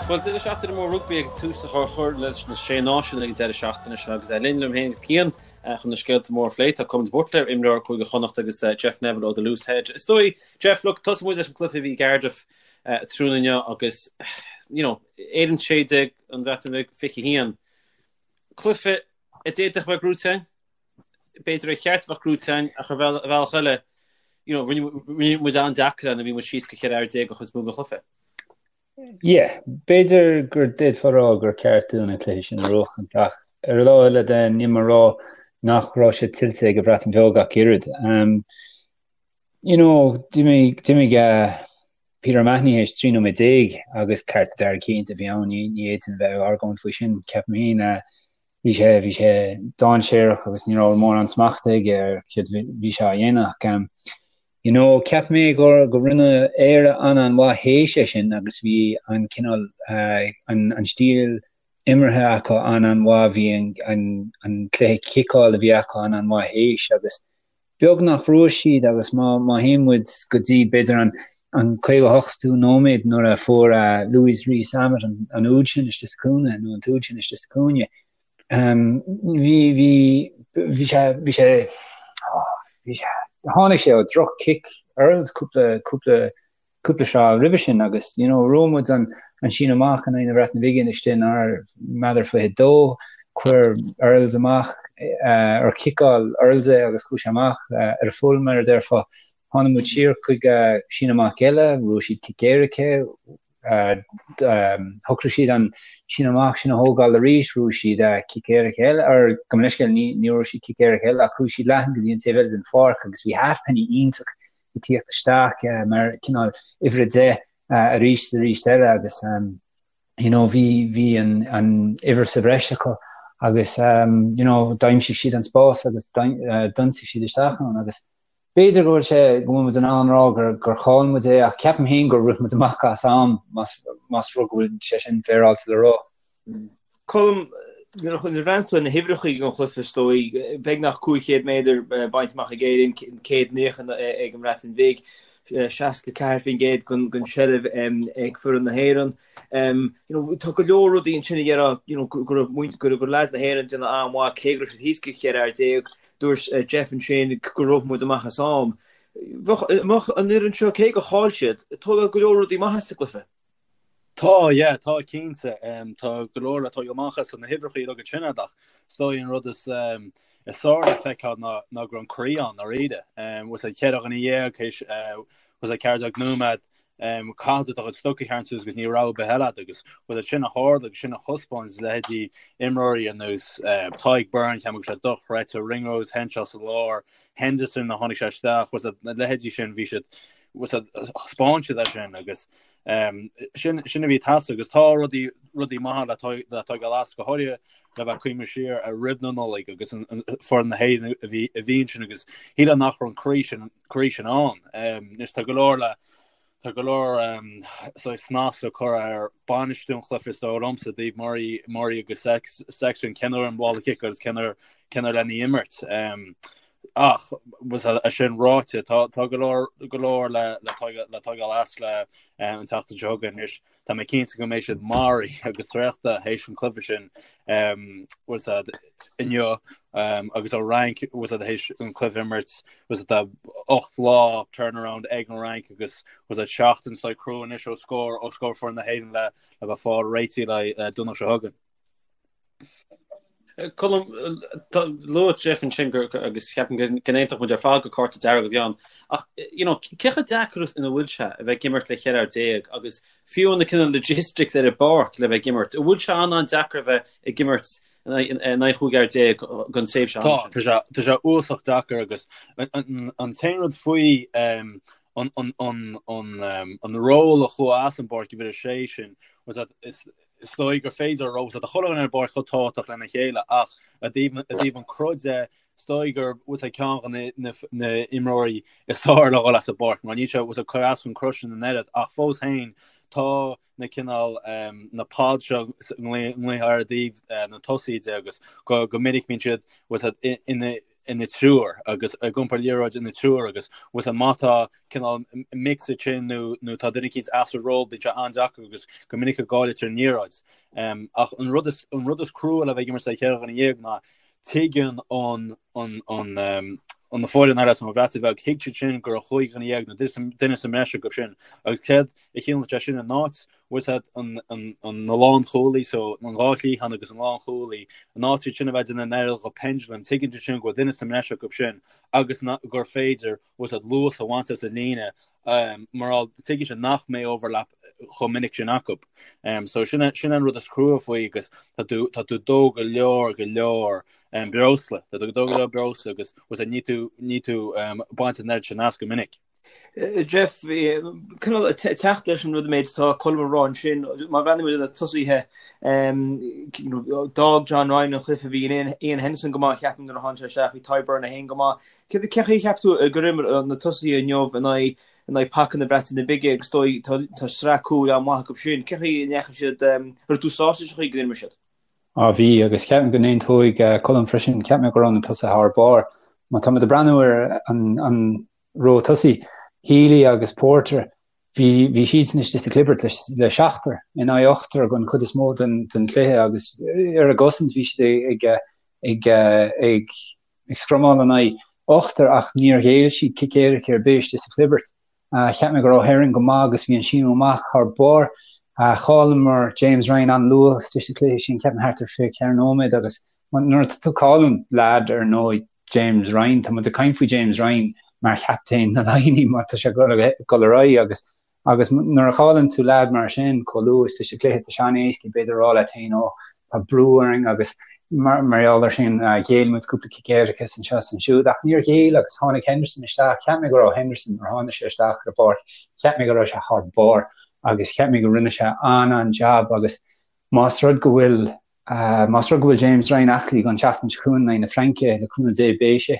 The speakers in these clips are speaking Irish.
Bhuel, deireadh seachtaine mór rugbaí agus tús á chur leis na Sé Náisiún ag an deireadh seachtaine seo agus linn liom féin agus Cian chun na scéalta móra a phlé. Tá Colm de Buitléar, imreoir Cúige Chonnacht agus Jeff Neville ó The Loose Head. Is dóigh, Jeff, look, tosóidh muid leis an gcluiche a bhí i gCardiff tráthnóna inniu agus, you know, Éirinn 16, an Bhreatain Bheag 21. Cluiche a d'fhéadfadh a bheith gnóite againn, b'fhéidir ar cheart a bheith gnóite againn ach ar bhealach eile, you know, rinne muid an-deacair ann a bhí muid síos go 14 fhear an chuid is mó den chluiche. Yeah, b'fhéidir gur d'fhéadfá a rá gur ceart dúinn an cluiche sin a bhuachaint ach ar an lámh eile de níl mé ag rá nach raibh sé tuillte ag an Bhreatain Bheag ach oiread. Um, you know, d'imigh d'imigh uh, Peter O'Mahony théis 13 nóiméad agus cárta dearg cinnte a bhí ann, ní ní fhéadfainn a bheith ag argóint faoi sin, ceapaim féin. Uh, bhí sé bhí sé dainséarach agus ní raibh mórán smachta aige ar céard a bhí sé á dhéanamh ach um, you know, cheap mé gur go rinne Éire an-an-mhaith théis é sin agus bhí an cineál uh, an, an stíl imeartha acu an-an-mhaith, bhí an, an, an cluiche ciceáil a bhí acu an-an-mhaith théis agus beag nach bhfuair siad agus má má théann muid go dtí b'fhéidir an an 58ú nóiméad nuair a fuair uh, Louis Rees-Zammit an, an úd sin istigh sa chúinne nó an t-úd sin istigh sa chúinne um, bhí bhí bhí sé bhí sé oh, bhí sé tháinig sé ó droch cic Earls cúpla cúpla cúpla sraith roimhe sin agus you know bhuaigh muid an an síneadh amach in aghaidh na Breataine Bige istigh inár méadar 22 chuir Earls amach uh, ar chiceáil Earls é agus chuaigh sé amach uh, ar a full mar a déarfá tháinig muid siar chuig uh, síneadh amach eile bhuaigh siad cic éirice uh, um, shocraigh siad an síneadh amach sin a thógáil arís bhuaigh siad uh, cic éirice eile ar gabh mo leithscéal ní ní raibh siad cic éirice eile ach chuaigh siad leathan go dtí an taobh eile den pháirc agus bhí Halfpenny iontach ag tíocht isteach mar cineál uimhir 10 arís is arís eile agus you know bhí bhí an an uimhir sa bhreis acu agus you know d'aimsigh siad an spás agus d'ionsaigh siad isteach ann agus b'fhéidir go bhfuil sé go bhfuil muid in ann rá gur gur chaill muid é ach ceapaim féin gur rith muid amach as am más más rud go bhfuil sé sin féaráilte le rá. Colm, nuair a bhreathnaíonn tú ar na huimhreacha ag an chluiche, is dóigh, beagnach 500 méadar bainte amach ag Éirinn, 190 ag an mBreatain Bhig, 64% den tseilbh ag foireann na hÉireann. Tá go leor rudaí ansin a dhéarfá go raibh leaids na hÉireann ag déanamh an-mhaith, cé go raibh siad thíos go 14 fhear. Dúirt Jeff ansin gur rith muid amach as am. Bheadh an fhoireann seo, cé gur chaill siad, ag tógáil go leor rudaí maithe as an gcluiche. Tá, yeah, tá cinnte. Tá go leor le tógáil amach as na huimhreacha uilig ansin ach is dóigh an rud is is fearr le feiceáil ná ná go raibh an croí ann dáiríre. Was é 14 dhuine théis was é 14 nóiméad caithfidh tú do chuid stoc a tharraingt suas agus níl rogha ar bith eile agat agus was é sin a tharla agus sin a thaispeáin leithéidí imreoirí ar nós Tadhg Beirne, ceapaim go raibh sé dochreidte, Ringrose, Henshaw sa lár, Henderson a tháinig sé isteach, was é na leithéidí sin bhí siad was é thaispeáin siad é sin agus sin sin a bhí ag teastáil agus tá rudaí rudaí maithe le le tógáil as go háirithe le bheith ag cuimhneamh siar ar roimh na Nollag agus an foireann na hÉireann a bhí a bhí ansin agus shílfeá nach raibh an croí sin croí sin ann. Anois tá go leor le tá go leor saghas snas le cur ar bainistiú an chluiche is dóigh liomsa i dtaobh Murray Murray agus Sexton cén uair an ball a chiceáil agus cén uair cén uair lena imirt. Ach é sin ráite, tá go leor go leor le le tógáil as le an tseachtain seo chugainn anois. Tá mé cinnte go mbeidh siad maraithe agus traochta théis an cluiche sin was inniu agus an Fhrainc was théis an cluiche imirt was tá 8 lá turnaround ag an Fhrainc agus was seachtain is crua anois ó scór ó scór foireann na hÉireann le le bheith fáil réitithe le Domhnach seo chugainn. Colm, luaigh Jeff ansin gur agus ceapaim go n-aontódh muid ar fad gur cárta dearg a bhí ann. Ach you know, cé chomh deacair ina bhfuil sé a bheith ag imirt le 14 fhear agus fiú na cineál logistics ar an bpáirc le bheith ag imirt, an bhfuil sé an-an-deacair a bheith ag imirt in aghaidh 15 fhear don tréimhse ama sin? Tá, tá sé uafásach deacair agus an t-aon rud faoi an an ról a chuaigh as an bpáirc uimhir a sé sin was that is Is dóigh gur féidir a rá tá chuile dhuine ar an bpáirc chomh tábhachtach lena chéile ach i dtaobh i dtaobh an cruth de, is dóigh gur was é ceann de na na imreoirí is fearr le dhul as an bpáirc mar níl sé was ag cur as chun cruth sin an oiread ach fós féin tá na cineál na pods seo nglaothar i dtaobh na tosaithe de agus go go minic bíonn siad was ina. Ina dtriúr agus ag iompar liathróid ina dtriúr agus bhfuil má tá cineál mix ansin nó nó tá duine eicínt as a ról bíonn sé an-deacair agus go minic a gcailltear an liathróid. Ach an rud is an rud is crua le bheith ag imirt le 14 dhuine ná tuigeann an an an an na foireann eile san Bhreatain Bheag thuig siad sin go raibh 15 dhuine nó duine sa mbreis acu sin agus céard a chiallaíonn sé sin in áit bhfuil a fhios agat an na lánchúlaí so an dhá chliathán agus an lánchúlaí in áit iad sin a bheith ag déanamh an oiread de pendulum tuigeann siad sin go bhfuil duine sa mbreis acu sin agus gur féidir bhfuil a fhios agat luas a bhaint as an líne mar tuigeann siad nach mbeidh overlap chomh minic sin acu. So sin sin an rud is crua faoi agus tá tú tá tú ag dó go leor go leor breosla tá tú ag dó go leor breosla agus bhfuil a fhios agat ní tú ní tú baint an oiread sin as go minic. Jeff, cineál ag teacht leis an rud an méid atá Colm a rá ansin, má bhreathnaíonn muid ar na tosaithe, d'fhág John Ryan an cluiche, bhí Iain Henderson go maith, ceapaim, nuair a tháinig sé isteach, bhí Tadhg Beirne féin go maith. Cé chaoi a cheap tú gur imir na tosaithe inniu in aghaidh in aghaidh paca na Breataine Bige agus is dóigh tá sraith cúil an-mhaith acu sin. Cé chaoi a ndeachaigh siad, raibh tú sásta leis an chaoi go d'imir siad? Á bhí, agus ceapaim go n-aontóidh Colm freisin, cheap mé go raibh na tosaithe thar barr. Má tá muid ag breathnú ar an an ró tosaigh, Healy agus Porter, bhí bhí siadsan istigh sa chlibirt le le seachtar in aghaidh ochtar don chuid is mó den den chluiche agus ar an gcosaint bhí siad ag ag ag ag scrumáil in aghaidh ochtar ach níor ghéill siad cic éirice ar bith istigh sa chlibirt. Cheap mé go raibh Herring go maith agus bhí an síneadh amach thar barr. Chailleamar James Ryan an-luath istigh sa chluiche sin, ceapaim thart ar 24 nóiméad agus nuair atá tú ag cailliúint leaid ar nós James Ryan, tá muid ag caint faoi James Ryan mar chaptaen na Laighean má tá sé ag dul ar aghaidh agus agus nuair a chailleann tú leaid mar sin chomh luath istigh sa chluiche tá sé an-éasca b'fhéidir a rá leat féin ó tá brú orainn agus mar mar gheall ar sin ghéill muid cúpla cic éirice anseo is ansiúd ach níor ghéill agus tháinig Henderson isteach cheap mé go raibh Henderson nuair a tháinig sé isteach ar an bpáirc cheap mé go raibh sé thar barr agus cheap mé go rinne sé an-an-jab agus más rud go bhfuil Más rud go bhfuil James Ryan aclaí don tseachtain seo chugainn in aghaidh na Fraince, le cúnamh Dé beidh sé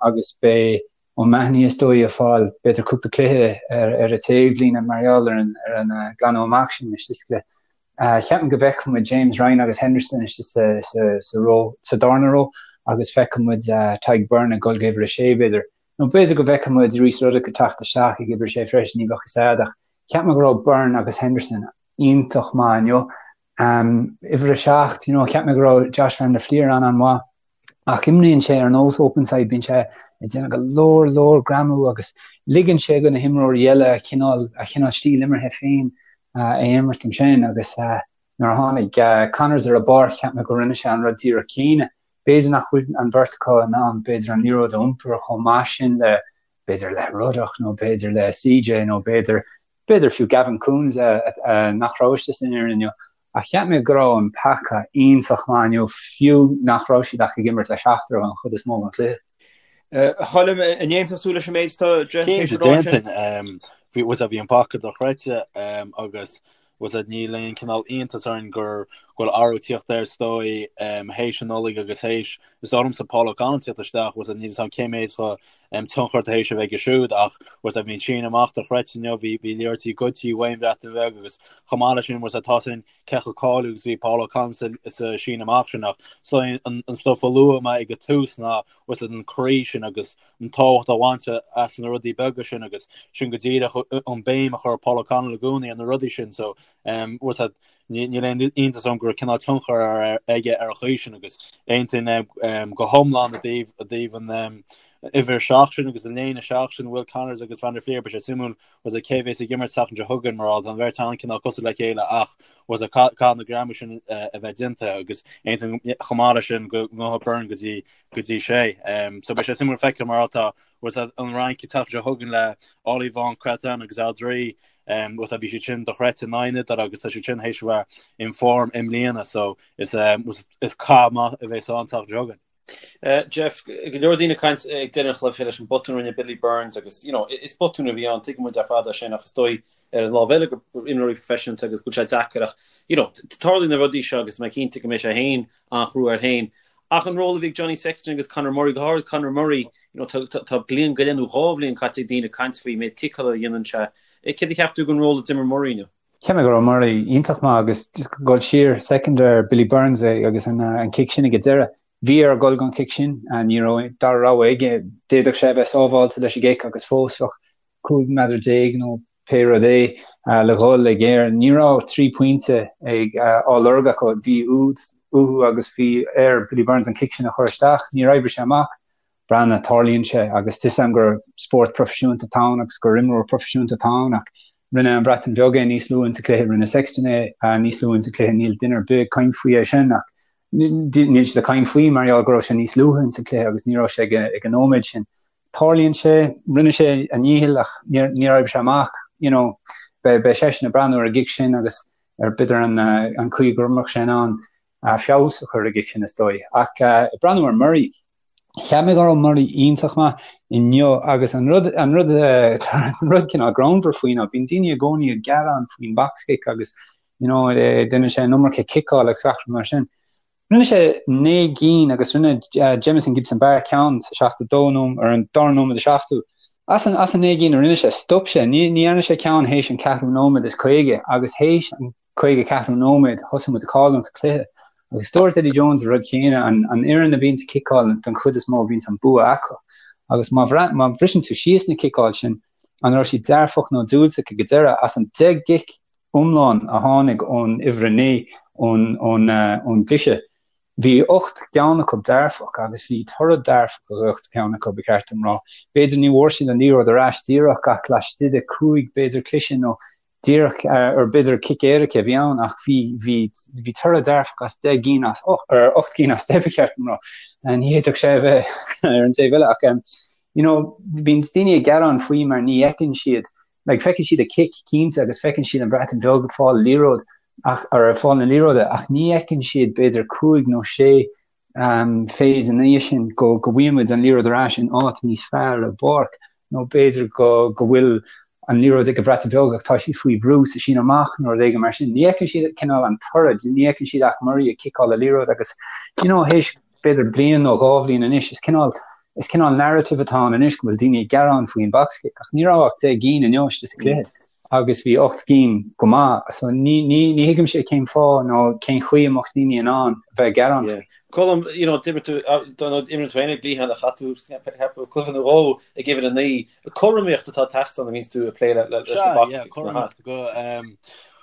agus beidh O'Mahony is dóigh ag fáil b'fhéidir cúpla cluiche ar an taobhlíne mar gheall ar an ar an glanadh amach sin istigh sa chluiche. Ceapaim go bhfeicfidh muid James Ryan agus Henderson istigh sa sa sa ró sa darna ró agus feicfidh muid Tadhg Beirne ag dul go uimhir a sé b'fhéidir. Nó b'fhéidir go bhfeicfidh muid Rhys Ruddock ag teacht isteach ag uimhir a sé freisin, ní bheadh fhios a'd ach cheap mé go raibh Beirne agus Henderson iontach maith inniu. Uimhir a 7, you know, cheap mé go raibh Josh van der Flier an-an-mhaith ach imríonn sé ar nós openside, bíonn sé ag déanamh go leor leor greamú agus ligeann sé do na himreoirí eile a chineál a chineál stíl imeartha féin a imirt ansin agus nuair a tháinig Connors ar an bpáirc cheap mé go rinne sé an rud díreach céanna. B'fhéidir nach bhfuil an bheirt acu in ann b'fhéidir an liathróid a iompar chomh maith sin le b'fhéidir le Ruddock nó b'fhéidir le CJ nó b'fhéidir B'fhéidir fiú Gavin Coombes nach raibh istigh san fhoireann inniu, ach cheap mé go raibh an paca iontach maith inniu fiú nach raibh siad ach ag imirt le seachtar an chuid is mó den chluiche. A Choilm, an aontódh tú leis an méid atá Jeff tar éis a rá ansin? Bhí an paca dochreidte agus bhfuil a fhios a'd níl aon cineál iontas orainn gur go bhfuil athrú tíocht air is dóigh théis an Nollaig agus théis is dóigh liomsa Paul O'Connell tíocht isteach bhfuil a fhios a'd níl fhios a'm cé méid de tionchar atá théis a bheith aige siúd ach bhfuil a fhios a'd bhí an síneadh amach dochreidte inniu bhí bhí liathróidí goidte ón Bhreatain Bheag agus chomh maith leis sin bhfuil a fhios a'd tá sin cé chomh cáiliúil agus bhí Paul O'Connell sa sa síneadh amach sin ach so an an stuff a luaigh mé ag an tús ná bhfuil a fhios a'd an croí sin agus an tábhacht a bhaint as na rudaí beaga sin agus sin go díreach an béim a chuir Paul O'Connell i gcónaí ar na rudaí sin so bhfuil a fhios a'd níl aon iontas orm go raibh cineál tionchar aige ar an chaoi sin agus aontaím go hiomlán i dtaobh i dtaobh an uimhir 7 sin agus an léine 7 sin Will Connors agus Van der Flier beidh sé suimiúil bhfuil a fhios a'd cé bhéas ag imirt seachtain seo chugainn mar tá an bheirt an-cineál cosúil le chéile ach bhfuil a fhios a'd caithfidh na greamú sin a bheith déanta agus aontaím chomh maith leis sin go ngabhfaidh Beirne go dtí go dtí sé. So beidh sé suimiúil feiceáil mar tá bhfuil a fhios a'd an Fhrainc an tseachtain seo chugainn le Ollivon, Cretin agus Alldritt bhfuil a fhios a'd bhí siad sin dochreidte in aghaidh na hIodáile agus tá siad sin théis a bheith in form i mbliana so is is cath maith a bheas ann an tseachtain seo chugainn. Jeff, go leor daoine ag caint ag deireadh an chluiche leis an botún a rinne Billy Burns agus you know, is botún a bhí ann, tuigeann muid ar fad é sin ach is dóigh ar an lámh eile gur imreoirí proifisiúnta agus go bhfuil sé deacair ach you know, tarlaíonn na rudaí seo agus tá mé cinnte go mbeidh sé féin an-chrua air féin. Ach an ról a bhí ag Johnny Sexton agus Conor Murray, go háirid Conor Murray, you know, tá bliain go leith nó dhá bhliain caite ag daoine ag caint faoi méid ciceála a dhéanann sé. Céard a cheap tú den ról a d'imir Murray inniu? Cheap mé go raibh Murray iontach maith agus just dul siar soicind ar Billy Burns agus an cic sin ag an deireadh. Bhí air dul don chic sin, ní raibh dara rogha aige. D'fhéadfadh sé a bheith sábháilte leis an gcic agus fós bheadh 15 meadar nó pé rud é le dhul ag Éirinn. Ní raibh 3 pointe ag á lorg acu. Bhí úd uathu agus bhí ar Billy Burns an cic sin a chur isteach. Níor oibrigh sé amach. Breathnaigh, tarlaíonn sé agus tá 'fhios a'm gur spórt proifisiúnta atá ann agus gur imreoir proifisiúnta atá ann ach rinne an Bhreatain Bheag é níos luaithe insa chluiche, rinne Sexton é níos luaithe insa chluiche, níl duine ar bith ag caint faoi é sin ach níl siad ag caint faoi mar gheall go raibh sé níos luaithe insa chluiche agus ní raibh sé ag an nóiméad sin. Tarlaíonn sé, rinne sé a dhícheall ach níor oibrigh sé amach, you know, beidh seisean ag breathnú ar an gcic sin agus ar b'fhéidir an chaoi go mbeadh sé in ann feabhas a chur ar an gcic sin is dóigh. Ach ag breathnú ar Murray, cheap mé go raibh Murray iontach maith inniu agus an rud an rud an rud cineál greannmhar faoi ná bíonn daoine i gcónaí ag gearán faoin box kick agus you know déanann sé an iomarca ciceáil agus gach rud mar sin. Rinne sé 9 gcinn agus rinne Jamison Gibson-Park ceann sa 72 nóiméad ar an dara nóiméad is 70. As an as an 9 gcinn a rinne sé, stop sé, ní ní dhearna sé ceann théis an ceathrú nóiméad is 50 agus théis an 54ú nóiméad thosaigh muid ag cailliúint an cluiche. Agus dúirt Eddie Jones an rud céanna, an an fhoireann a bhíonns ag ciceáil den chuid is mó bhíonns an bua acu. Agus má má bhriseann tú síos na ciceáil sin, an raibh siad dearfach nó diúltach ag an deireadh, as an 10 gcic iomlán a tháinig ón uimhir 9 ón ón ón gcliseadh, bhí 8 gceann acu dearfach agus bhí toradh dearfach ag 8 gceann acu, ba cheart dom rá. B'fhéidir ní bhfuair siad an liathróid ar ais díreach ach laistigh de 5 b'fhéidir cliseadh nó díreach ar b'fhéidir cic éirice a bhí ann ach bhí bhí bhí toradh dearfach as 10 gcinn as 8 ar 8 gcinn as 10 ba cheart dom rá. Ní fhéadfadh sé a bheith ar an taobh eile ach you know bíonn daoine ag gearán faoi mar ní fheiceann siad like feiceann siad an cic cinnte agus feiceann siad an Bhreatain Bheag ag fáil liathróid ach ar ag fáil na liathróide ach ní fheiceann siad b'fhéidir 5 nó 6 phase ina dhiaidh sin go go bhfaigheann muid an liathróid ar ais in áit níos fearr ar an bpáirc nó b'fhéidir go go bhfuil an liathróid ag an Bhreatain Bheag ach tá siad faoi bhrú sa síneadh amach nó rud éigin mar sin. Ní fheiceann siad cineál an toradh, ní fheiceann siad ach Murray ag ciceáil an liathróid agus you know théis b'fhéidir bliain nó dhá bhliain anois is cineál is cineál narrative atá ann anois go bhfuil daoine ag gearán faoin box kick ach ní raibh ach 10 gcinn inniu istigh sa chluiche agus bhí 8 gcinn go maith so ní ní ní thuigimse cén fáth nó cén chaoi a mbeadh daoine in ann a bheith ag gearán faoi. Colm, you know, d'imir tú, d'imir tú féin ag liathán a chaith tú cluiche nó dhó ag uimhir 9. Cothromaíocht atá ag teastáil nuair a bhíonns tú ag plé leis na box kicks. Cothromaíocht go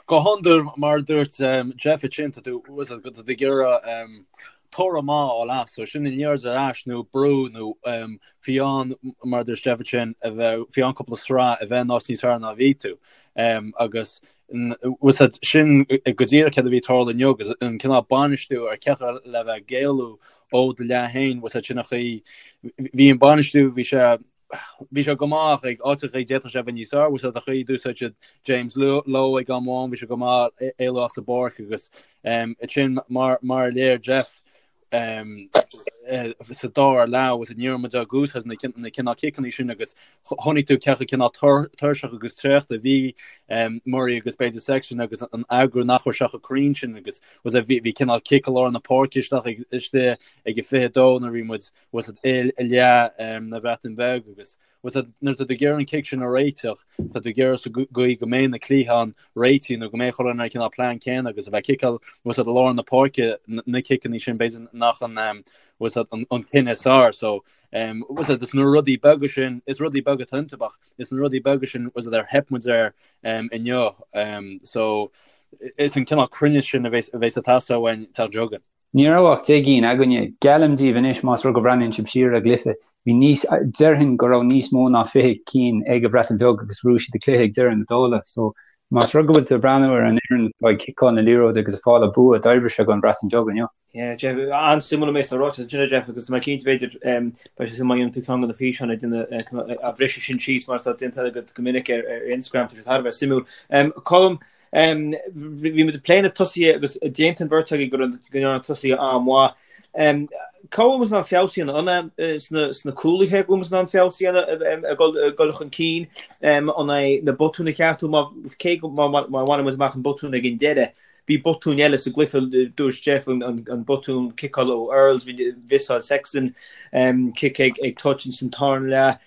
go hiondúil mar a dúirt Jeff ansin tá tú tá tú ag iarraidh toradh maith a fháil as, so sin an liathróid ar ais nó brú nó fiú amháin mar a dúirt Jeff ansin a bheith fiú amháin cúpla sraith a bheith in áit níos fearr ná a bhí tú agus sin go díreach céard a bhí ag tarlú inniu agus an cineál bainistiú ar cé le bheith ag éalú ó do leath féin sin an chaoi bhí an bainistiú bhí sé bhí sé go maith ag áiteacha d'fhéadfadh sé a bheith níos fearr bhfuil an chaoi d'úsáid siad James Lowe ag am amháin bhí sé go maith éalú as an bpáirc agus sin mar mar a léir Jeff sa dara leath agus ní raibh muid ag úsáid na na cineál ciceanna sin agus chonaic tú cé chomh cineál tuirseach agus traochta a bhí Murray agus b'fhéidir Sexton agus an eagrú nach raibh sé chomh cruinn sin agus bhí bhí cineál cic i lár na páirce isteach istigh ag a 22 nuair a bhí muid bhfuil i leath na Breataine Bheag agus bhfuil nuair atá tú ag iarraidh an cic sin a réiteach, tá tú ag iarraidh sa gcaoi go mbeidh na cliatháin réitithe nó go mbeidh chuile dhuine ar an cineál plean céanna agus a bheith ag ciceáil bhfuil i lár na páirce na ciceanna sin b'fhéidir nach an bhfuil an cinneadh is fearr so bhfuil is na rudaí beaga sin is rudaí beaga atá iontu ach is na rudaí beaga sin bhfuil ar theip muid air inniu so is an cineál cruinneas sin a bheas ag teastáil uainn an tseachtain seo chugainn. Ní raibh ach 10 gcinn againne. Geallaim daoibh anois, más rud go mbreathnaíonn sibh siar ar an gcluiche, bhí níos, déarfainn go raibh níos mó ná 20 cinn ag an Bhreatain Bheag agus bhuaigh siad an cluiche ag deireadh na dála. So, más rud go bhfuil tú ag breathnú ar an fhoireann atá ag ciceáil na liathróide agus ag fáil an bua, d'oibrigh sé don Bhreatain Bheag inniu. Yeah, Jeff, an-suimiúil an méid atá ráite ansin, Jeff, agus tá mé cinnte b'fhéidir beidh sé suimiúil má dhéanann tú ceann de na físeáin ag déanamh a bhriseadh sin síos mar atá déanta agat go minic ar Instagram, tá sé thar a bheith suimiúil. Colm, Bhí muid ag plé na tosaithe agus d'aontaigh an bheirt agaibh go ndearna na tosaithe an-mhaith. Cá bhfuil muid in ann feabhas a dhéanamh? An é sna cúlaithe go bhfuil muid in ann feabhas a dhéanamh ag dul chun cinn? An é na botúin a cheartú? Cé go má bhaineann muid amach an botún ag an deireadh? Bhí botúin eile sa gcluiche, dúirt Jeff, an botún ciceála ó Earls, bhí mhiosáil Sexton cic ag touch ins an tarna leath,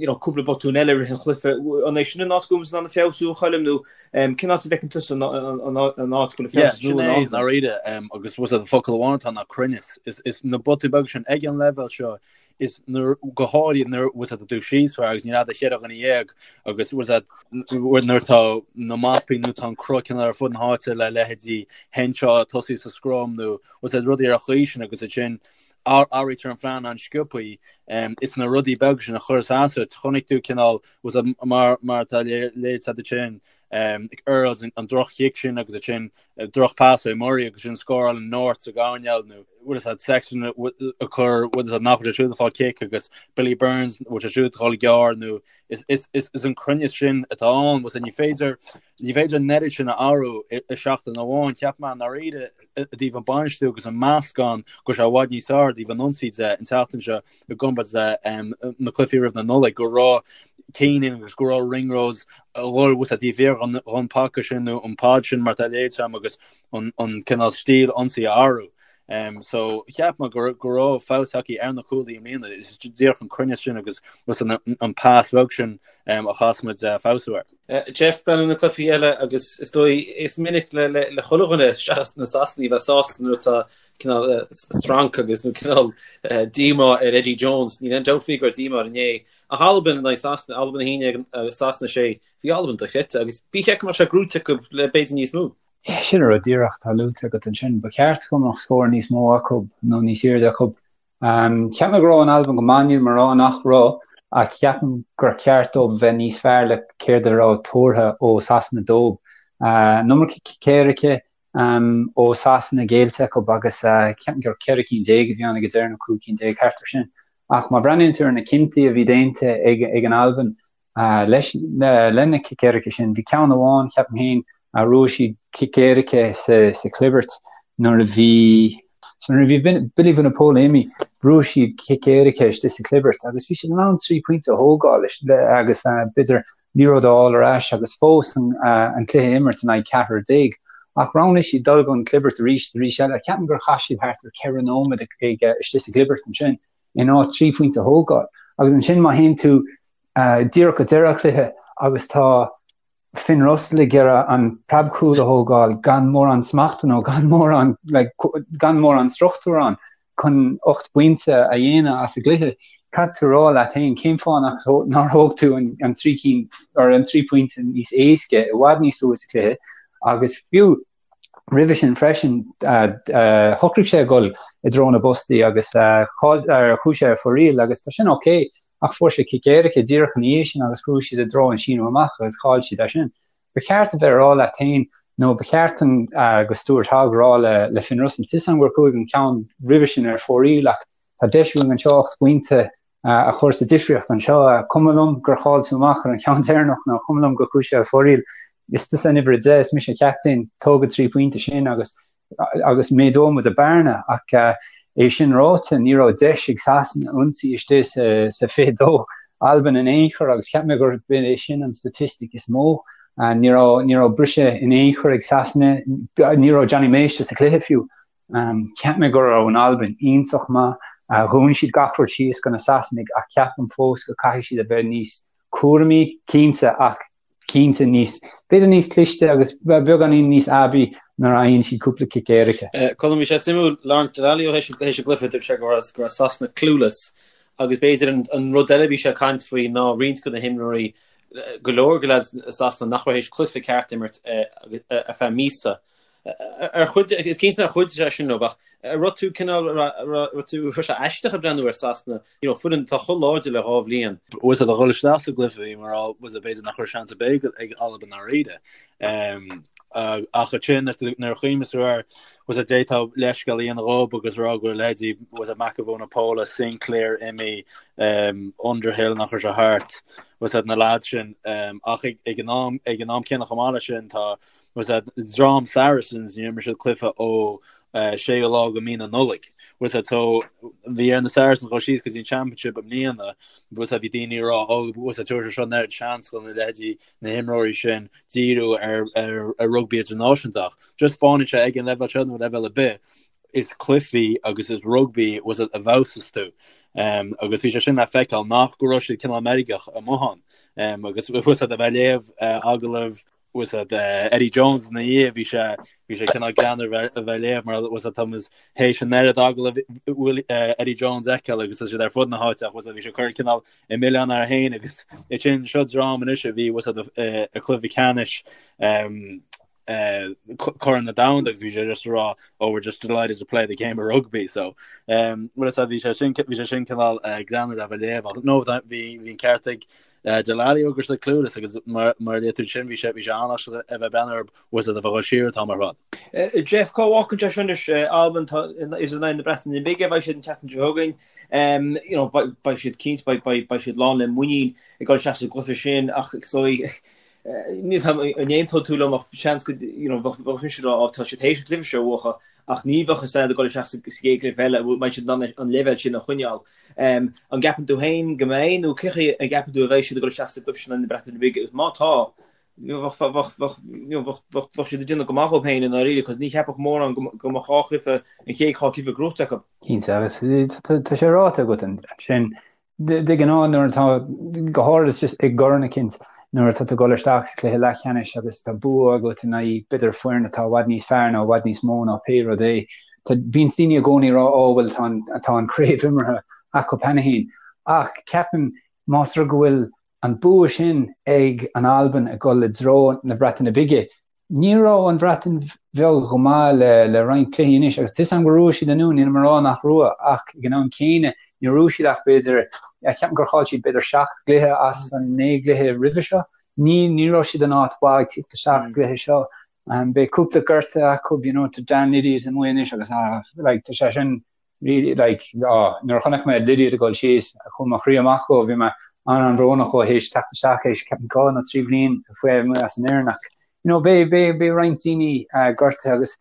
you know, cúpla botún eile i rith an chluiche. An é sin an áit go bhfuil muid in ann feabhsú, a Choilm, nó cén áit a bhfeiceann tusa an áit go bhfuil feabhas nua in ann? Dáiríre, agus bhfuil a fhios agat focal amháin atá ná cruinneas. Is na botúin beaga sin ag an leibhéal seo, is nuair, go háirithe nuair, bhfuil a fhios agat, tá tú síos fear agus níl agat ach cheithre dhuine dhéag agus bhfuil a fhios agat nuair atá na mapaí nó tá an cruth cineál ar fud na háite le leithéidí Henshaw ag tosaí sa scrum nó bhfuil a fhios agat rudaí ar an chaoi sin agus ansin athraítear an phlean an-sciobthaí is na rudaí beaga sin a chuireas as duit. Chonaic tú cineál bhfuil a fhios agat mar mar atá léite agat ansin Earls an droch-chic sin agus ansin droch pas ó Murray agus sin scórálann North sa gcoirnéal nó bhfuil a fhios agat Sexton a chur bhfuil a fhios agat nach bhfuil sé siúd ag fáil cic agus Billy Burns bhfuil sé siúd ag dul gearr nó is is is is an cruinneas sin atá ann bhfuil a fhios agat ní féidir ní féidir an oiread sin a athrú i seachtain amháin cheap mé ndáiríre i dtaobh an bainistiú agus an meascán go raibh sé i bhfad níos fearr i dtaobh an ionsaí de an tseachtain seo i gcomparáid le na cluichí roimh na Nollaig go raibh Keenan agus go raibh Ringrose a dhul bhfuil a fhios agat taobh thiar dhon paca sin nó an pod sin mar atá léite agam agus an cineál stíl ionsaí a athrú. So cheap mé go go raibh feabhas tagtha ar na cúlaithe i mbliana is díreach an cruinneas sin agus an pas bheag sin a chaithfeas muid feabhsú air. Jeff, breathnú na cluichí eile agus is dóigh is minic le le chuile dhuine seachas na Sasanaigh bheith sásta nuair atá cineál sranc agus nó cineál díomá ar Eddie Jones. Níl aon dabht faoi go raibh díomá air inné. Ach Albain in aghaidh Sasana, Albain 11 Sasana 6, bhí Albain dochreidte agus bhí check go mbeadh sé gnóite acu le b'fhéidir níos mó. Sin an rud díreach atá luaite agat ansin. Ba cheart go mbeadh scór níos mó acu nó níos airde acu. Cheap mé go raibh an Albain go maith, níl mé ag rá nach raibh, ach ceapaim gur cheart dóibh bheith níos fearr le céard a raibh tuartha ó Sasana dóibh. An iomarca cic éirice ó Sasana géillte acu agus ceapaim gur 14 cinn a bhí ann ag an deireadh nó 15 cinn, thart ar sin. Ach má bhreathnaíonn tú ar na cinntí a bhí déanta ag an Albain, Leis, le na cic éirice sin, bhí ceann amháin, ceapaim féin, a bhrúigh siad cic éirice sa chlibirt nuair a bhí, so nuair a bhí Billy Vunipola imithe, bhrúigh siad cic éirice istigh sa chlibirt agus bhí siad in ann 3 pointe a thógáil agus b'fhéidir liathróid a fháil ar ais agus fós an cluiche a imirt in aghaidh ceathrar déag. Ach roghnaigh siad dul don chlibirt arís arís eile. Ceapaim gur chaith siad thart ar 4 nóiméad ag istigh sa chlibirt ansin. in áit 3 phointe a thógáil. Agus ansin má théann tú díreach go deireadh an chluiche agus tá Finn Russell ag iarraidh an preabchúl a thógáil gan mórán smachta nó gan mórán like, gan mórán struchtúr ann chun 8 bpointe a dhéanamh as an gcluiche, caithfidh tú rá leat féin cén fáth nach nár thóg tú an, an 3 cinn or an 3 pointe níos éasca i bhfad níos luaithe sa chluiche agus fiú Roimhe sin freisin, shocraigh sé a dhul i dtreo na bpostaí agus chuaigh sé ar fóraoil agus tá sin ok, ach fuair sé cic éirice díreach ina dhiaidh sin agus chuaigh siad i dtreo an síneadh amach agus chaill siad é sin. Ba cheart a bheith ag rá leat féin nó ba cheart do Stuart Hogg rá le Finn Russell, tá a fhios agam gur chuaigh an ceann roimhe sin ar fóraoil ach tá deis againn anseo 8 bpointe a chur sa difríocht anseo. Cuma liom gur chaill tú amach ar an cheann deireanach nó cuma liom gur chuaigh sé ar fóraoil. Is tusa an uimhir 10, is mise an captaen, tóg an 3 pointe sin agus agus méadóidh muid an bearna. Ach é sin ráite, ní raibh deis ag Sasana ionsaí istigh sa sa 22 Albain in aon chor agus cheap mé gurb é sin an staitistic is mó. Ní raibh ní raibh briseadh in aon chor ag Sasana, ní raibh Jonny May sa chluiche fiú. Cheap mé go raibh an Albain iontach maith. Dhún siad gach rud síos do na Sasanaigh ach ceapaim fós go caithfidh siad a bheith níos cúramaí, cinnte, ach cinnte níos, b'fhéidir níos cliste agus beagáinín níos aibí nuair a fhaigheann siad cúpla cic éirice. Colm, bhí sé suimiúil, Lawrence Dallaglio théis an gcluiche, dúirt sé go raibh go raibh Sasana clueless agus b'fhéidir an rud eile a bhí sé ag caint faoi ná roinnt de na himreoirí, go leor de leaids Sasana nach raibh théis cluiche ceart a imirt ar feadh míosa. Ar chuid, is cinnte nár chuidigh sé sin leo, ach an raibh tú cineál, raibh tú, raibh sé aisteach ag breathnú ar Sasana, you know, foireann atá chomh láidir le dhá bhliain. Bhfuil a fhios agat ag dhul isteach sa gcluiche bhí mé ag rá, bhfuil a fhios agat b'fhéidir nach raibh seans ar bith ag Albain ndáiríre. Ach ansin nuair a chuimhníos tú air, bhfuil a fhios agat d'fhéadfá leithscéal a dhéanamh dhóibh agus rá go raibh leithéidí, bhfuil a fhios agat Mako Vunipola, Sinclair imithe, Underhill nach raibh sé thart, bhfuil a fhios agat na lads sin. Ach ag an am, ag an am céanna chomh maith leis sin tá, Bhfuil a fhios agat dream Saracens, níor imir siad cluiche ó 6ú lá de mí na Nollag. Bhfuil fhios a'd, so bhí ar na Saracens dhul síos go dtí an Championship i mbliana, bhfuil fhios a'd, bhí daoine ag rá, oh, bhfuil fhios a'd, tabharfaidh sé seo an oiread seans do na leithéidí na himreoirí sin díriú ar, ar, ar rugbaí idirnáisiúnta ach just spáineann sé ag an leibhéal seo nó leibhéal ar bith, is cluichí agus is rugbaí bhfuil fhios a'd a fheabhsas tú. Um, agus bhí sé sin le feiceáil nach go raibh siad cineál meirgeach amuigh ann. Um, agus bhfuil fhios a'd a bheith ag léamh uh, agallamh bhfuil fhios a'd Eddie Jones ina dhiaidh bhí sé bhí sé cineál greannmhar a bheith ag léamh mar bhfuil fhios a'd tá muid théis an oiread agallamh Eddie Jones a fheiceáil agus tá siad ar fud na háite ach bhfuil fhios a'd bhí sé ag cur cineál an milleán air féin agus é sin seo dream anois a bhí bhfuil fhios a'd i cluiche ceannais Corn na Domhanda agus bhí sé just ag rá oh we're just delighted to play the game of rugby so bhfuil fhios a'd bhí sé sin bhí sé sin cineál greannmhar a bheith ag léamh ach no bhí bhí an ceart ag Dallaglio go raibh siad clueless agus mar a luaigh tú ansin bhí sé bhí sé an-aisteach a bheith breathnú orthu bhfuil fhios a'd a bheith chomh siar an t-am ar fad. Jeff, cá bhfágann sé seo anois Albain tá is in aghaidh na Breataine Bige a bheidh siad an tseachtain seo chugainn. You know, beidh siad cinnte beidh beidh beidh siad lán le muinín ag dul isteach sa gcluiche sin ach so níl 'fhios a'm an aontóidh tú liom ach seans go you know bheadh bheadh mise ag rá á tá siad théis an cluiche seo a bhuachan ach ní bheadh fhios a'd ag dul isteach sa gcéad chluiche eile an mbeidh siad in ann an leibhéal sin a choinneáil. An gceapann tú féin go mbeidh nó cén chaoi a gceapann tú a bheidh siad ag dul isteach sa gcluiche sin in aghaidh na Breataine Bige agus má tá bheadh bheadh bheadh you know bheadh bheadh bheadh siad ag déanamh go maith dhóibh féin i ndáiríre cos ní cheapfadh mórán go go mbeadh dhá chluiche an chéad dhá chluiche gnóite acu. Cinnte agus tá sé ráite agat ansin De ghnáth nuair atá, go háirid just i gcorn eicínt, nuair atá tú ag dul isteach sa chluiche leathcheannais agus tá bua agat in aghaidh b'fhéidir foireann atá i bhfad níos fearr nó i bhfad níos mó ná pé rud é, tá, bíonns daoine i gcónaí ag rá ó bhuel tá an, tá an chraobh imeartha acu cheana féin. Ach ceapaim más rud go bhfuil an bua sin ag an Albain ag dul i dtreo na Breataine Bige, Ní raibh an Bhreatain Bheag chomh maith le roinnt cluichí anois agus tá 'fhios a'm gur bhuaigh siad an Dún, nílim ag rá nach raibh ach ag an am céanna níor bhuaigh siad ach b'fhéidir, ceapaim gur chaill siad b'fhéidir seacht gcluiche as an naoi gcluiche roimhe seo. Ní ní raibh siad in áit mhaith ag tíocht isteach sa gcluiche seo. Beidh cúpla gortaithe acu, you know, tá Dan Lydiate amuigh anois agus ah like tá sé sin really like ah nuair a chonaic mé Lydiate ag dul síos chuaigh mo chroí amach dhó bhí mé an-an-bhrónach dhó théis teacht isteach théis ceapaim dhá nó trí bhliain faoi amuigh as an fhoireann ach you know beidh beidh beidh roinnt daoine uh, gortaithe agus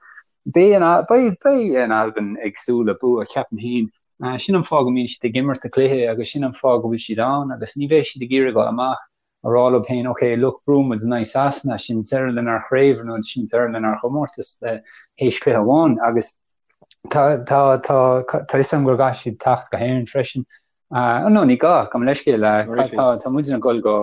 beidh an beidh beidh an Albain ag súil le bua ceapaim féin uh, sin an fáth go mbíonn siad ag imirt a cluiche agus sin an fáth go bhfuil siad ann agus ní bheidh siad ag iarraidh dul amach a rá leo féin, ok, look, bhuaigh muid in aghaidh Sasana, sin deireadh lenár chraobh nó sin deireadh lenár chomórtas théis cluiche amháin agus tá tá tá tá fhios agam go gcaithfidh siad teacht go hÉirinn freisin. Uh, no, ní gá, gabh mo leithscéal, uh, tá tá muid ag dul go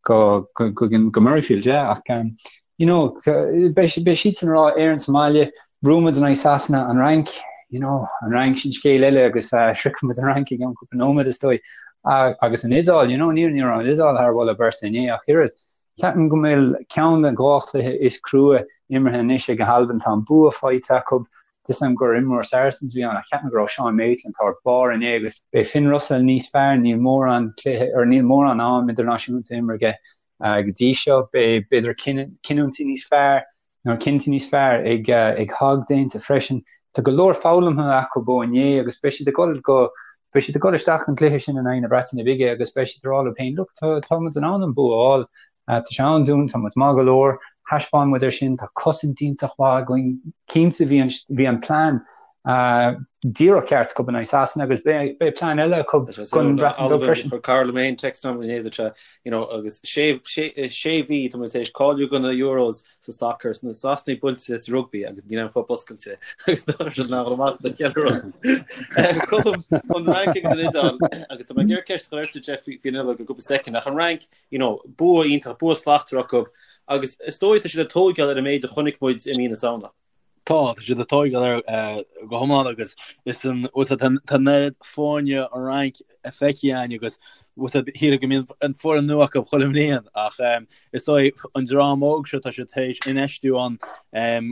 go go go go Murrayfield, yeah, ach um, you know, beidh beidh siadsan ag rá Éirinn sa mbaile, bhuaigh muid in aghaidh Sasana, an Fhrainc, you know, an Fhrainc sin scéal eile agus uh, sroichfidh muid an Fhrainc i gceann cúpla nóiméad is dóigh. Uh, agus an Iodáil, you know, ní ní raibh an Iodáil thar mholadh beirte inné ach oiread. Ceapaim go bhfuil ceann den dhá chluiche is crua imeartha anois ag an Albain, tá an bua faighte acu, Tá 'fhios a'm gur imreoir Saracens a bhí ann ach ceapaim go raibh Sean Maitland thar barr inné agus beidh Finn Russell níos fearr, níl mórán cluiche or níl mórán am idirnáisiúnta imeartha aige go dtí seo. Beidh b'fhéidir cinniúintí níos fearr nó cinntí níos fearr ag ag Hogg déanta freisin. Tá go leor foghlamtha acu ó inné agus beidh siad ag dul go beidh siad ag dul isteach an cluiche sin in aghaidh na Breataine Bige agus beidh siad ag rá leo féin look tá tá muid in ann an bua a fháil. Tá sé ann dúinn, tá muid maith go leor, thaispeáin muid é sin, tá cosaint iontach mhaith againn, cinnte bhí an bhí an plean díreach ceart acu in aghaidh Sasana agus beidh beidh plean eile acu don Bhreatain Bheag freisin. Chuir cara liom féin text agam inné dúirt sé you know agus sé sé sé mhí tá muid tar éis cáiliú do na Euros sa sacar na Sasanaigh buailte sa rugbaí agus níl aon phub oscailte agus tá siad nach amach do cheithre rud. Colm an Fhrainc agus an Iodáil agus tá mé ag iarraidh ceist a chur ort Jeff faoin Iodáil go cúpla soicind ach an Fhrainc you know, bua iontach, bua slachtmhar acu agus is dóigh tá siad ag tóigeáil ar an méid a chonaic muid i mí na Samhna. Tá, tá siad ag tóigeáil air go hiomlán agus is an, bhfuil a fhios agat, tá an oiread foirne an Fhrainc feicthe againn agus bhfuil a fhios agat, shílfeá go mbíonn an foireann nua acu chuile bhliain ach is dóigh an dream óg seo tá siad tar éis infheistiú ann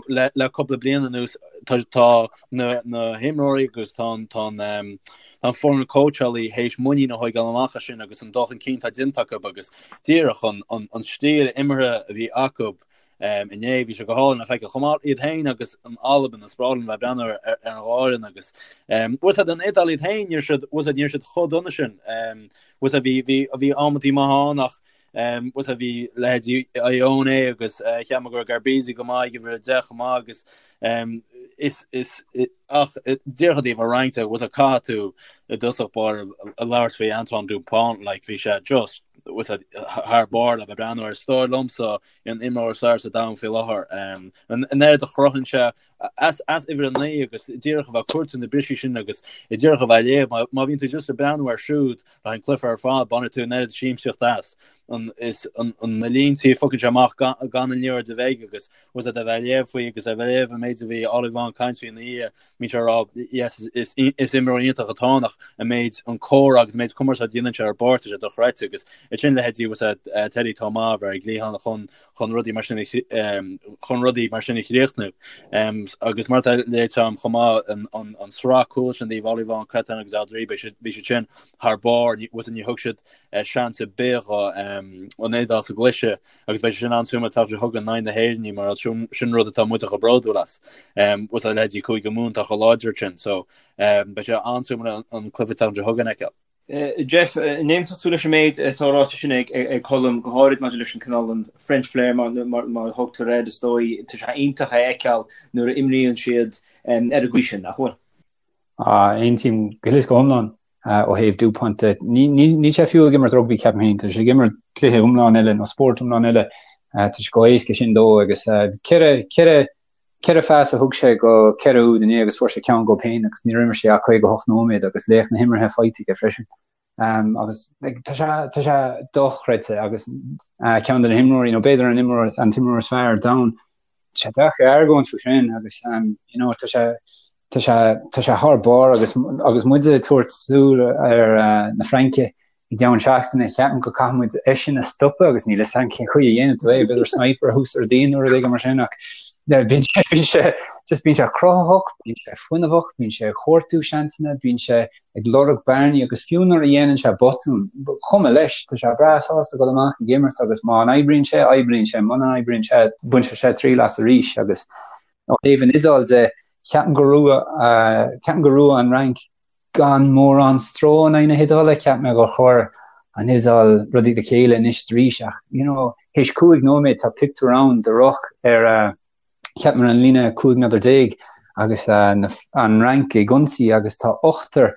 le le cúpla bliain anuas tá tá na na himreoirí agus tá an tá an Tá an foireann cóitseálaí théis muinín a thóigeáil amach as sin agus an dul chun cinn atá déanta acu agus díreach an an stíl imeartha a bhí acu inné, bhí sé go hálainn le feiceáil chomh maith iad féin agus an Albain, is breá liom bheith ag breathnú ar an dhá fhoireann agus bhfuil a fhios agat an Iodáil iad féin, níor siad, bhfuil a fhios agat, níor siad chomh dona sin. Bhfuil a fhios agat, bhí, bhí, bhí amantaí maithe ann ach. Bhuel bhí leithéidí Ioane agus cheap mé go raibh Garbisi go maith ag uimhir 10 chomh maith agus is is ach díreach i dtaobh an Fhrainc de bhuel caithfidh tú i dtosach báire a labhairt faoi Antoine Dupont like bhí sé just bhuel thar barr le bheith ag breathnú air. Is dóigh liomsa an imreoir is fearr sa domhan faoi láthair. An oiread a chruthaíonn sé as uimhir 9 agus díreach a bheith ag cuartú na brisí sin agus díreach a bheith ag léamh. Má bhíonn tú just ag breathnú air siúd le haghaidh an cluiche ar fad, bainfidh tú an oiread siamsaíocht as. An is an na líntí a phiocann sé amach gan an liathróid a bheith aige agus was a bheith ag léamh faoi agus a bheith ag léamh an méid a bhí Ollivon ag caint faoi ina dhiaidh. Bíonn sé ag rá yes is is imreoir iontach atá ann ach an méid an comhrá agus an méid cumarsáid a dhéanann sé ar an bpáirc tá sé dochreidte agus ansin leithéidí was Teddy Thomas a bheith ar an gcliathán chun chun rudaí mar sin chun rudaí mar sin a chríochnú. Agus mar atá luaite agam chomh maith an an an sraith cúl sin díobh Ollivon, Cretin agus Alldritt bhí siad bhí siad sin thar barr ní was ní thug siad seans ar bith dho an Iodáil sa gcluiche agus beidh sé sin an-suimiúil an tseachtain seo chugainn in aghaidh na hÉireann mar sin sin rud atá muid chomh bródúil as. Was leithéidí Cúige Mumhan atá chomh láidir sin so beidh sé an-suimiúil an cluiche an tseachtain seo chugainn a fheiceáil. Jeff, an aontódh tú leis an méid atá ráite sin ag Colm, go háirid maidir leis an cineál an French flair mar mar a thugtar air, is dóigh, tá sé iontach a fheiceáil nuair a imríonn siad ar an gcaoi sin, nach bhfuil? Aontaím go huile is go hiomlán ó thaobh Dupont de. Níl sé fiú ag imirt rugbaí, ceapaim féin. Tá sé ag imirt cluiche iomlán eile nó spórt iomlán eile. Tá sé chomh héasca sin dó agus ceithre phas a thug sé go ceithre úd inné agus fuair sé ceann dhó féin agus níor imir sé ach 58 nóiméad agus laoch na himeartha faighte aige freisin. Agus tá sé tá sé dochreidte agus ceann de na himreoirí nó b'fhéidir an imreoir an t-imreoir is fearr ar domhan. Tá sé deacair argóint faoi sin agus you know tá sé tá sé tá sé thar barr agus agus muid ag tabhairt súil ar na Fraince i gceann seachtaine ceapaim go caithfidh muid eisean a stopadh agus níl fhios agam cén chaoi a dhéanfaidh tú é, b'fhéidir sniper thuas ar díon nó rud éigin mar sin ach bíonn sé bíonn sé just bíonn sé cruthaitheach, bíonn sé fuinneamhach, bíonn sé ag cuartú seansanna, bíonn sé ag lorg bearnaí agus fiú nuair a dhéanann sé botún, ba chuma leis, tá sé breá sásta dul amach ag imirt agus má n-oibríonn sé, oibríonn sé, muna n-oibríonn sé, bainfidh sé triail as arís agus ó thaobh an Iodáil de, ceapaim go raibh, ceapaim go raibh an Fhrainc gan mórán stró in aghaidh na hIodáile, cheap mé gur chuir an Iodáil rudaí le chéile anois is arís ach you know théis 5 nóiméad tá pictiúr ann de ruc ar cheap mé ar an líne 15 méadar agus an Fhrainc ag ionsaí agus tá ochtar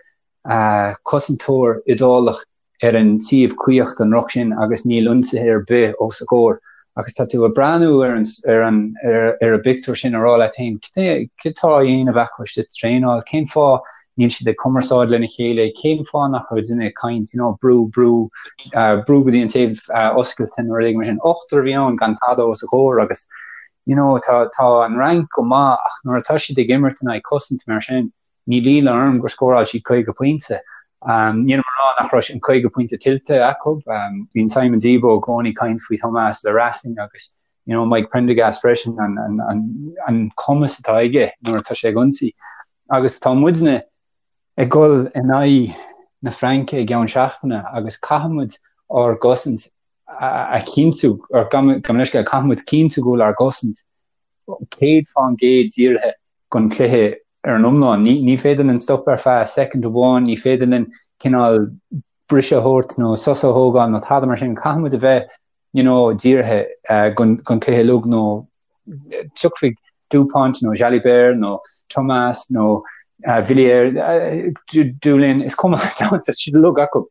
cosantóir Iodálach ar an taobh caoch den ruc sin agus níl ionsaithe ar bith os a gcomhair agus tá tú ag breathnú ar an ar an ar an bpictiúr sin ag rá leat féin cad tá á dhéanamh acu istigh sa traenáil, cén fáth níl siad ag cumarsáid lena chéile, cén fáth nach bhfuil duine ag caint, you know, brú, brú, brú go dtí an taobh oscailte nó rud éigin mar sin. Ochtar a bhí ann gan tada os a gcomhair agus you know, tá tá an Fhrainc go maith ach nuair atá siad ag imirt in aghaidh cosaint mar sin, níl ionadh orm gur scóráil siad 50 pointe. Nílim ag rá nach raibh an 50 pointe tuillte acu. Bíonn Simon Zebo i gcónaí ag caint faoi Thomas Racing agus you know, Mike Prendergast freisin, an, an, an, an cumas atá aige nuair atá sé ag ionsaí. Agus tá muidne ag dul in aghaidh na Fraince i gceann seachtaine agus caithfidh muid ár gcosaint a chinntiú, or gabh mo leithscéal, caithfidh muid cinntiú go bhfuil ár gcosaint 100% dírithe don chluiche ar an iomlán. Ní, ní féidir linn stop ar feadh soicind amháin, ní féidir linn cineál briseadh a thabhairt nó sos a thógáil nó tada mar sin. Caithfidh muid a bheith you know, dírithe don chluiche uilig nó tiocfaidh Dupont nó Jalibert nó Thomas nó Villiers, Dulin, is cuma tá siad uilig acu.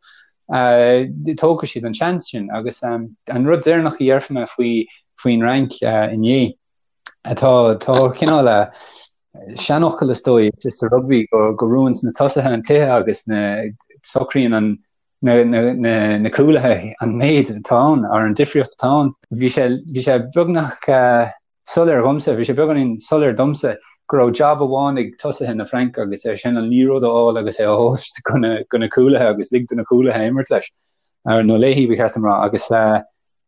Tógfaidh siad an seans sin agus an rud deireanach a dhéarfaidh mé faoi faoin Fhrainc inné atá tá cineál seanfhocal is dóigh sa rugbaí go go mbuann na tosaithe an cluiche agus na socraíonn an na na na na cúlaithe an méid atá ann ar an difríocht atá ann. Bhí sé bhí sé beagnach soiléir dhomsa, bhí sé beagáinín soiléir domsa go raibh jab amháin ag tosaithe na Fraince agus é sin an liathróid a fháil agus é a thabhairt go na go na cúlaithe agus lig do na cúlaithe imirt leis nó léi ba cheart dom rá agus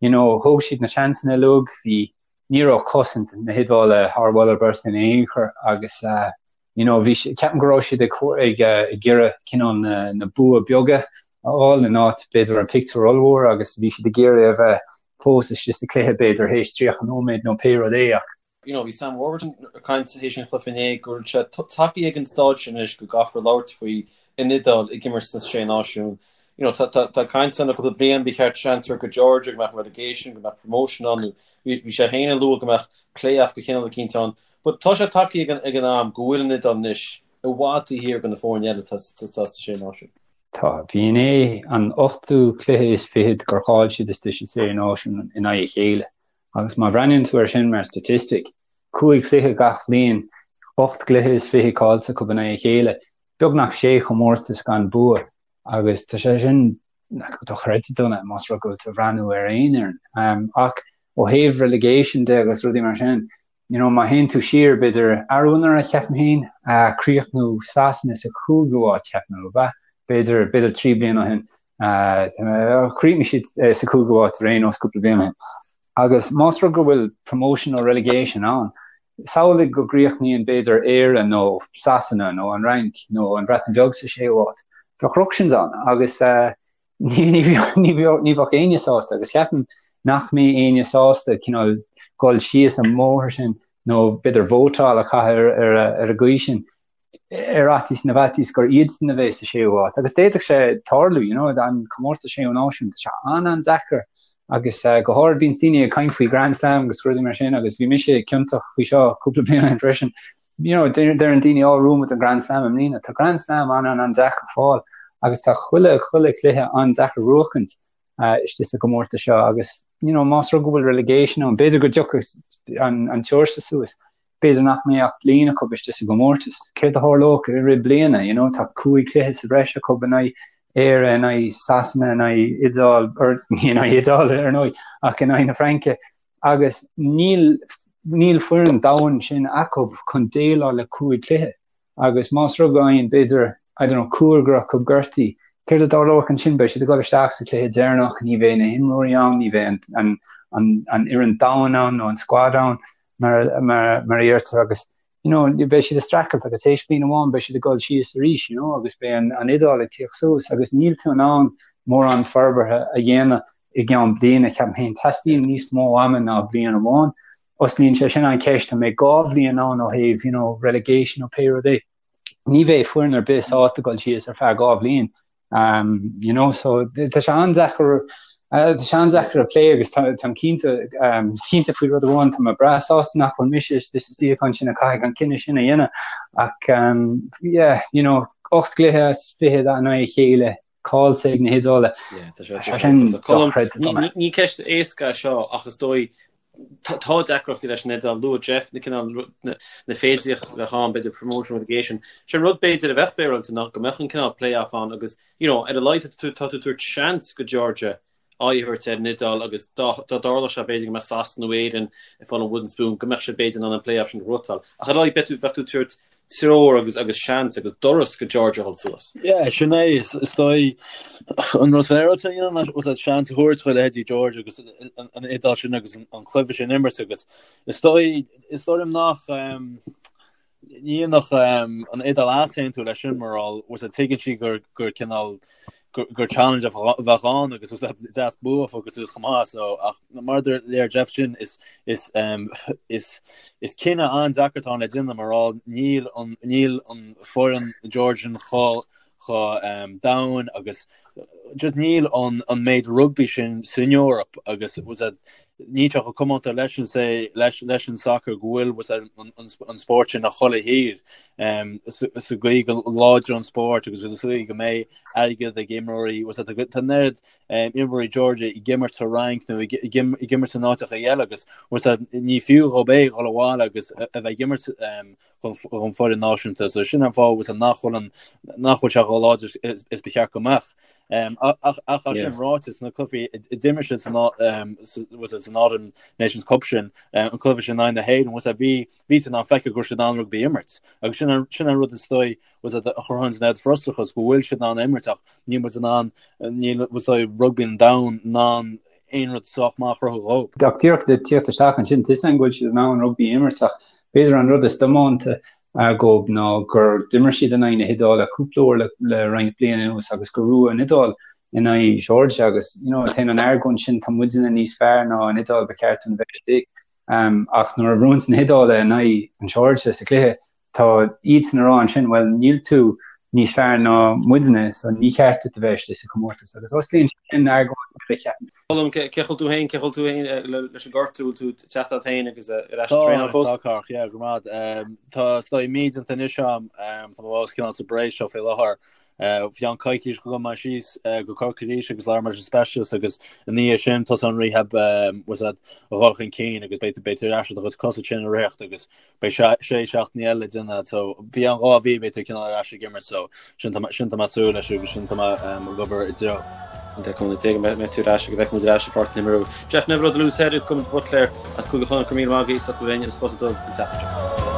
you know thóg siad na seansanna uilig, bhí ní raibh cosaint na hIodáile thar mholadh beirte in aon chor agus you know bhí ceapaim go raibh siad ag ag ag iarraidh cineál na na bua beaga a fháil in áit b'fhéidir an pictiúr ollmhór agus bhí siad ag iarraidh a bheith fós istigh sa chluiche b'fhéidir théis 30 nóiméad nó pé rud é ach you know bhí Sam Warburton ag caint théis an chluiche inné go bhfuil sé tagtha ag an stáid sin anois go gcaithfear labhairt faoi an Iodáil ag imirt sna Sé Náisiún. You know, tá, tá, tá caint ann le cúpla bliain, ba cheart seans a thabhairt go Georgia, go mbeadh relegation, go mbeadh promotion ann, nó bhí, bhí sé féin ag lua go mbeadh play-off de chineál eicínt ann. But tá sé tagtha ag an, ag an am go bhfuil an Iodáil anois i bhfad taobh thiar de na foirne eile atá, atá sa Sé Náisiún. Tá. Bhí inné an ochtú cluiche is fichead gur chaill siad istigh sa Sé Náisiún in aghaidh a chéile. Agus má bhreathnaíonn tú air sin mar statistic, cúig chluiche gach bliain, 28 gcluiche caillte acu in aghaidh a chéile, beagnach sé chomórtas gan bua agus tá sé sin dochreidte dona más rud go bhfuil tú ag breathnú ar aon fhoireann. Ach ó thaobh relegation de agus rudaí mar sin, you know, má théann tú siar b'fhéidir arú anuraidh ceapaim féin, chríochnú Sasana sa chúigiú háit ceapaim, ab ea? B'fhéidir, b'fhéidir 3 bliana ó shin. Chríochnaigh siad sa chúigiú háit ar aon nós cúpla bliain ó shin. Agus más rud go bhfuil promotion nó relegation ann, samhlaigh go gcríochnaíonn b'fhéidir Éire nó Sasana nó an Fhrainc nó an Bhreatain Bheag sa séú háit. Bheadh ructions ann agus ní bheadh éinne sásta agus ceapaim nach mbeidh éinne sásta cineál dul síos an mbóthar sin nó b'fhéidir vótáil a chaitheamh ar an gcaoi sin. ar fhaitíos na bhfaitíos gur iadsan a bheidh sa séú háit. Agus d'fhéadfadh sé tarlú, you know, an comórtas séú náisiún, tá sé an-an-deacair agus uh, go háirid bíonn daoine ag caint faoi Grand Slam agus rudaí mar sin agus bhí mise ciontach faoi seo cúpla bliain ó shin freisin. You know, deireann daoine á bhuafaidh muid an Grand Slam i mbliana. Tá Grand Slam an-an-an-deacair fáil agus tá chuile chuile cluiche an-deacair buachaint uh, istigh sa gcomórtas seo agus you know, más rud go bhfuil relegation ann, b'fhéidir go dtiocfaidh an, an Seoirsia suas. B'fhéidir nach mbeidh ach bliain acu istigh sa gcomórtas. Céard a tharlódh i rith bliana? You know, tá cúig chluiche sa bhreis acu in aghaidh Éire, in aghaidh Sasana, in aghaidh Iodáil, or ní in aghaidh Iodáil ar ndóigh, ach in aghaidh na Fraince. Agus níl níl foireann domhain sin acu chun déileáil le cúig chluiche. Agus más rud go bhfaigheann, b'fhéidir, I don't know, cúigear acu gortaithe, céard a tharlódh ansin? Beidh siad ag dul isteach sa chluiche deireanach, ní bheidh na himreoirí ann, ní bheidh an, an, an, an fhoireann domhain ann nó an squad ann. mar a deirtear agus you know beidh siad ag streachailt agus théis bliain amháin beidh siad ag dul síos arís you know agus beidh an an Iodáil ag tíocht suas agus níl tú in ann mórán forbartha a dhéanamh i gceann bliana ceapaim féin teastaíonn níos mó ama ná bliain amháin. Osclaíonn sé sin an cheist an mbeidh dhá bhliain ann ó thaobh you know relegation nó pé rud é. Ní bheidh foireann ar bith sásta dul síos ar feadh dhá bhliain Um, you know, so tá sé an-deacair uh, tá sé an-deacair a phlé agus táim cinnte um, cinnte faoi rud amháin tá mé breá sásta nach bhfuil mise istigh sa suíochán sin a chaithfidh an cinneadh sin a dhéanamh ach um, yeah, you know, 8 gcluiche as 20 in aghaidh a chéile caillte ag na hIodálaigh. Tá sé sin dochreidte. Ní ceist éasca seo ach is dóigh tá deacrachtaí leis an Iodáil. Luaigh Jeff na cineál na féidearthachtaí a bheadh ann, b'fhéidir promotion relegation. Sé an rud b'fhéidir a bheadh féaráilte ná go mbeadh an cineál play-off ann agus you know ar a laghad tá tú ag tabhairt seans go Georgia aghaidh a thabhairt ar an Iodáil agus dá dtarlódh sé b'fhéidir go mbeadh Sasana nó Éirinn ag fáil an wooden spoon go mbeadh siad b'fhéidir in ann an play-off sin a ghnóthachtáil. Ach ar a laghad bheadh tú ag tabhairt treoir agus agus seans agus doras go Georgia a dhul suas. Yeah, sin é, is dóigh an rud féaráilte a dhéanamh ná was seans a thabhairt do leithéidí Georgia agus an Iodáil sin agus an cluiche sin imirt agus is dóigh is dóigh liom nach ní dhéanfadh an Iodáil easaontú leis sin mar was tuigeann sí gur gur cineál gur challenge a bheadh ann agus was deas bua a fháil suas chomh maith so ach mar a deir Jeff sin is is is is cinneadh an-deacair atá ann le déanamh mar níl an níl an foireann Georgian chomh chomh domhain agus just níl an an méid rugbaí sin san Eoraip agus was that níl sé chomh comónta leis an say leis leis an soccer go bhfuil was that an an an spórt sin i chuile thír um, sa sa gcaoi go láidir an spórt agus sa gcaoi go mbeidh airgead ag imreoirí was that tá an oiread imreoirí Georgia ag imirt sa Fhrainc nó ag imirt in áiteacha eile agus was that ní fiú dhób é dhul abhaile agus a bheith ag imirt don foireann náisiúnta so sin an fáth was that nach bhfuil an nach bhfuil sé chomh láidir is is ba cheart go mbeadh. Ach ach ach sin ráite sna cluichí a d'imir siad san was that san Autumn Nations Cup sin an cluiche sin in aghaidh na hÉireann was that bhí bhí tú in ann feiceáil go raibh siad in ann rugbaí a imirt agus sin an sin an rud is dóigh was that a chruthaíonn an oiread frustrachas go bhfuil siad in ann imirt ach níl muid in ann níl was that rugbaí an domhain in ann aon rud sách maith a chruthú dhóibh. Ach díreach le tíocht isteach ansin, tá a fhios agam go bhfuil siad in ann rugbaí a imirt ach b'fhéidir an rud is diománta dhóibh ná gur d'imir siad in aghaidh na hIodáile cúpla uair le le roinnt bliain anuas agus gur bhuaigh an Iodáil in aghaidh Georgia agus you know téann an argóint sin tá muidne níos fearr ná an Iodáil ba cheart dúinn a bheith istigh ach nuair a bhuann na hIodálaigh in aghaidh an Georgia sa chluiche Tá iadsan a rá ansin, bhuel, níl tú. níos fearr ná muidne so ní ceart duit a bheith istigh sa chomórtas agus osclaíonn sin argóint eile ceapaim. Colm, cén chaoi a bhfuil tú féin, cén chaoi a bhfuil tú féin leis an gortú, bhfuil tú ag teacht ort féin agus ar ais ag traenáil fós? Tá, Cárthach, yeah, go raibh maith. Tá is dóigh mí déanta anois agam, tá mé fós cineál sa brace seo faoi láthair. Bhí an coicís go gabh mé síos go Corcaigh arís agus labhair mé leis an specialist agus i ndiaidh sin tosaíonn an rehab bhfuil a fhios agat a dhul chun cinn agus beidh tú beidh tú ar ais ar do chuid cosa sin ag ritheacht agus beidh sé sé seachtainí eile le déanamh so faoi cheann 2 mhí beidh tú cineál ar ais ag imirt so sin tá sin tá mé ag súil leis agus sin tá mé ag obair i dtreo. An deich mbliana déag mbeidh tú ar ais agus beidh muid ar ais i bPáirc na hImeartha. Jeff Neville ó The Loose Head agus Colm de Buitléar as Cúige Chonnacht go raibh míle maith agaibh as ucht a bheith linn ar an Spota Dubh an tseachtain seo.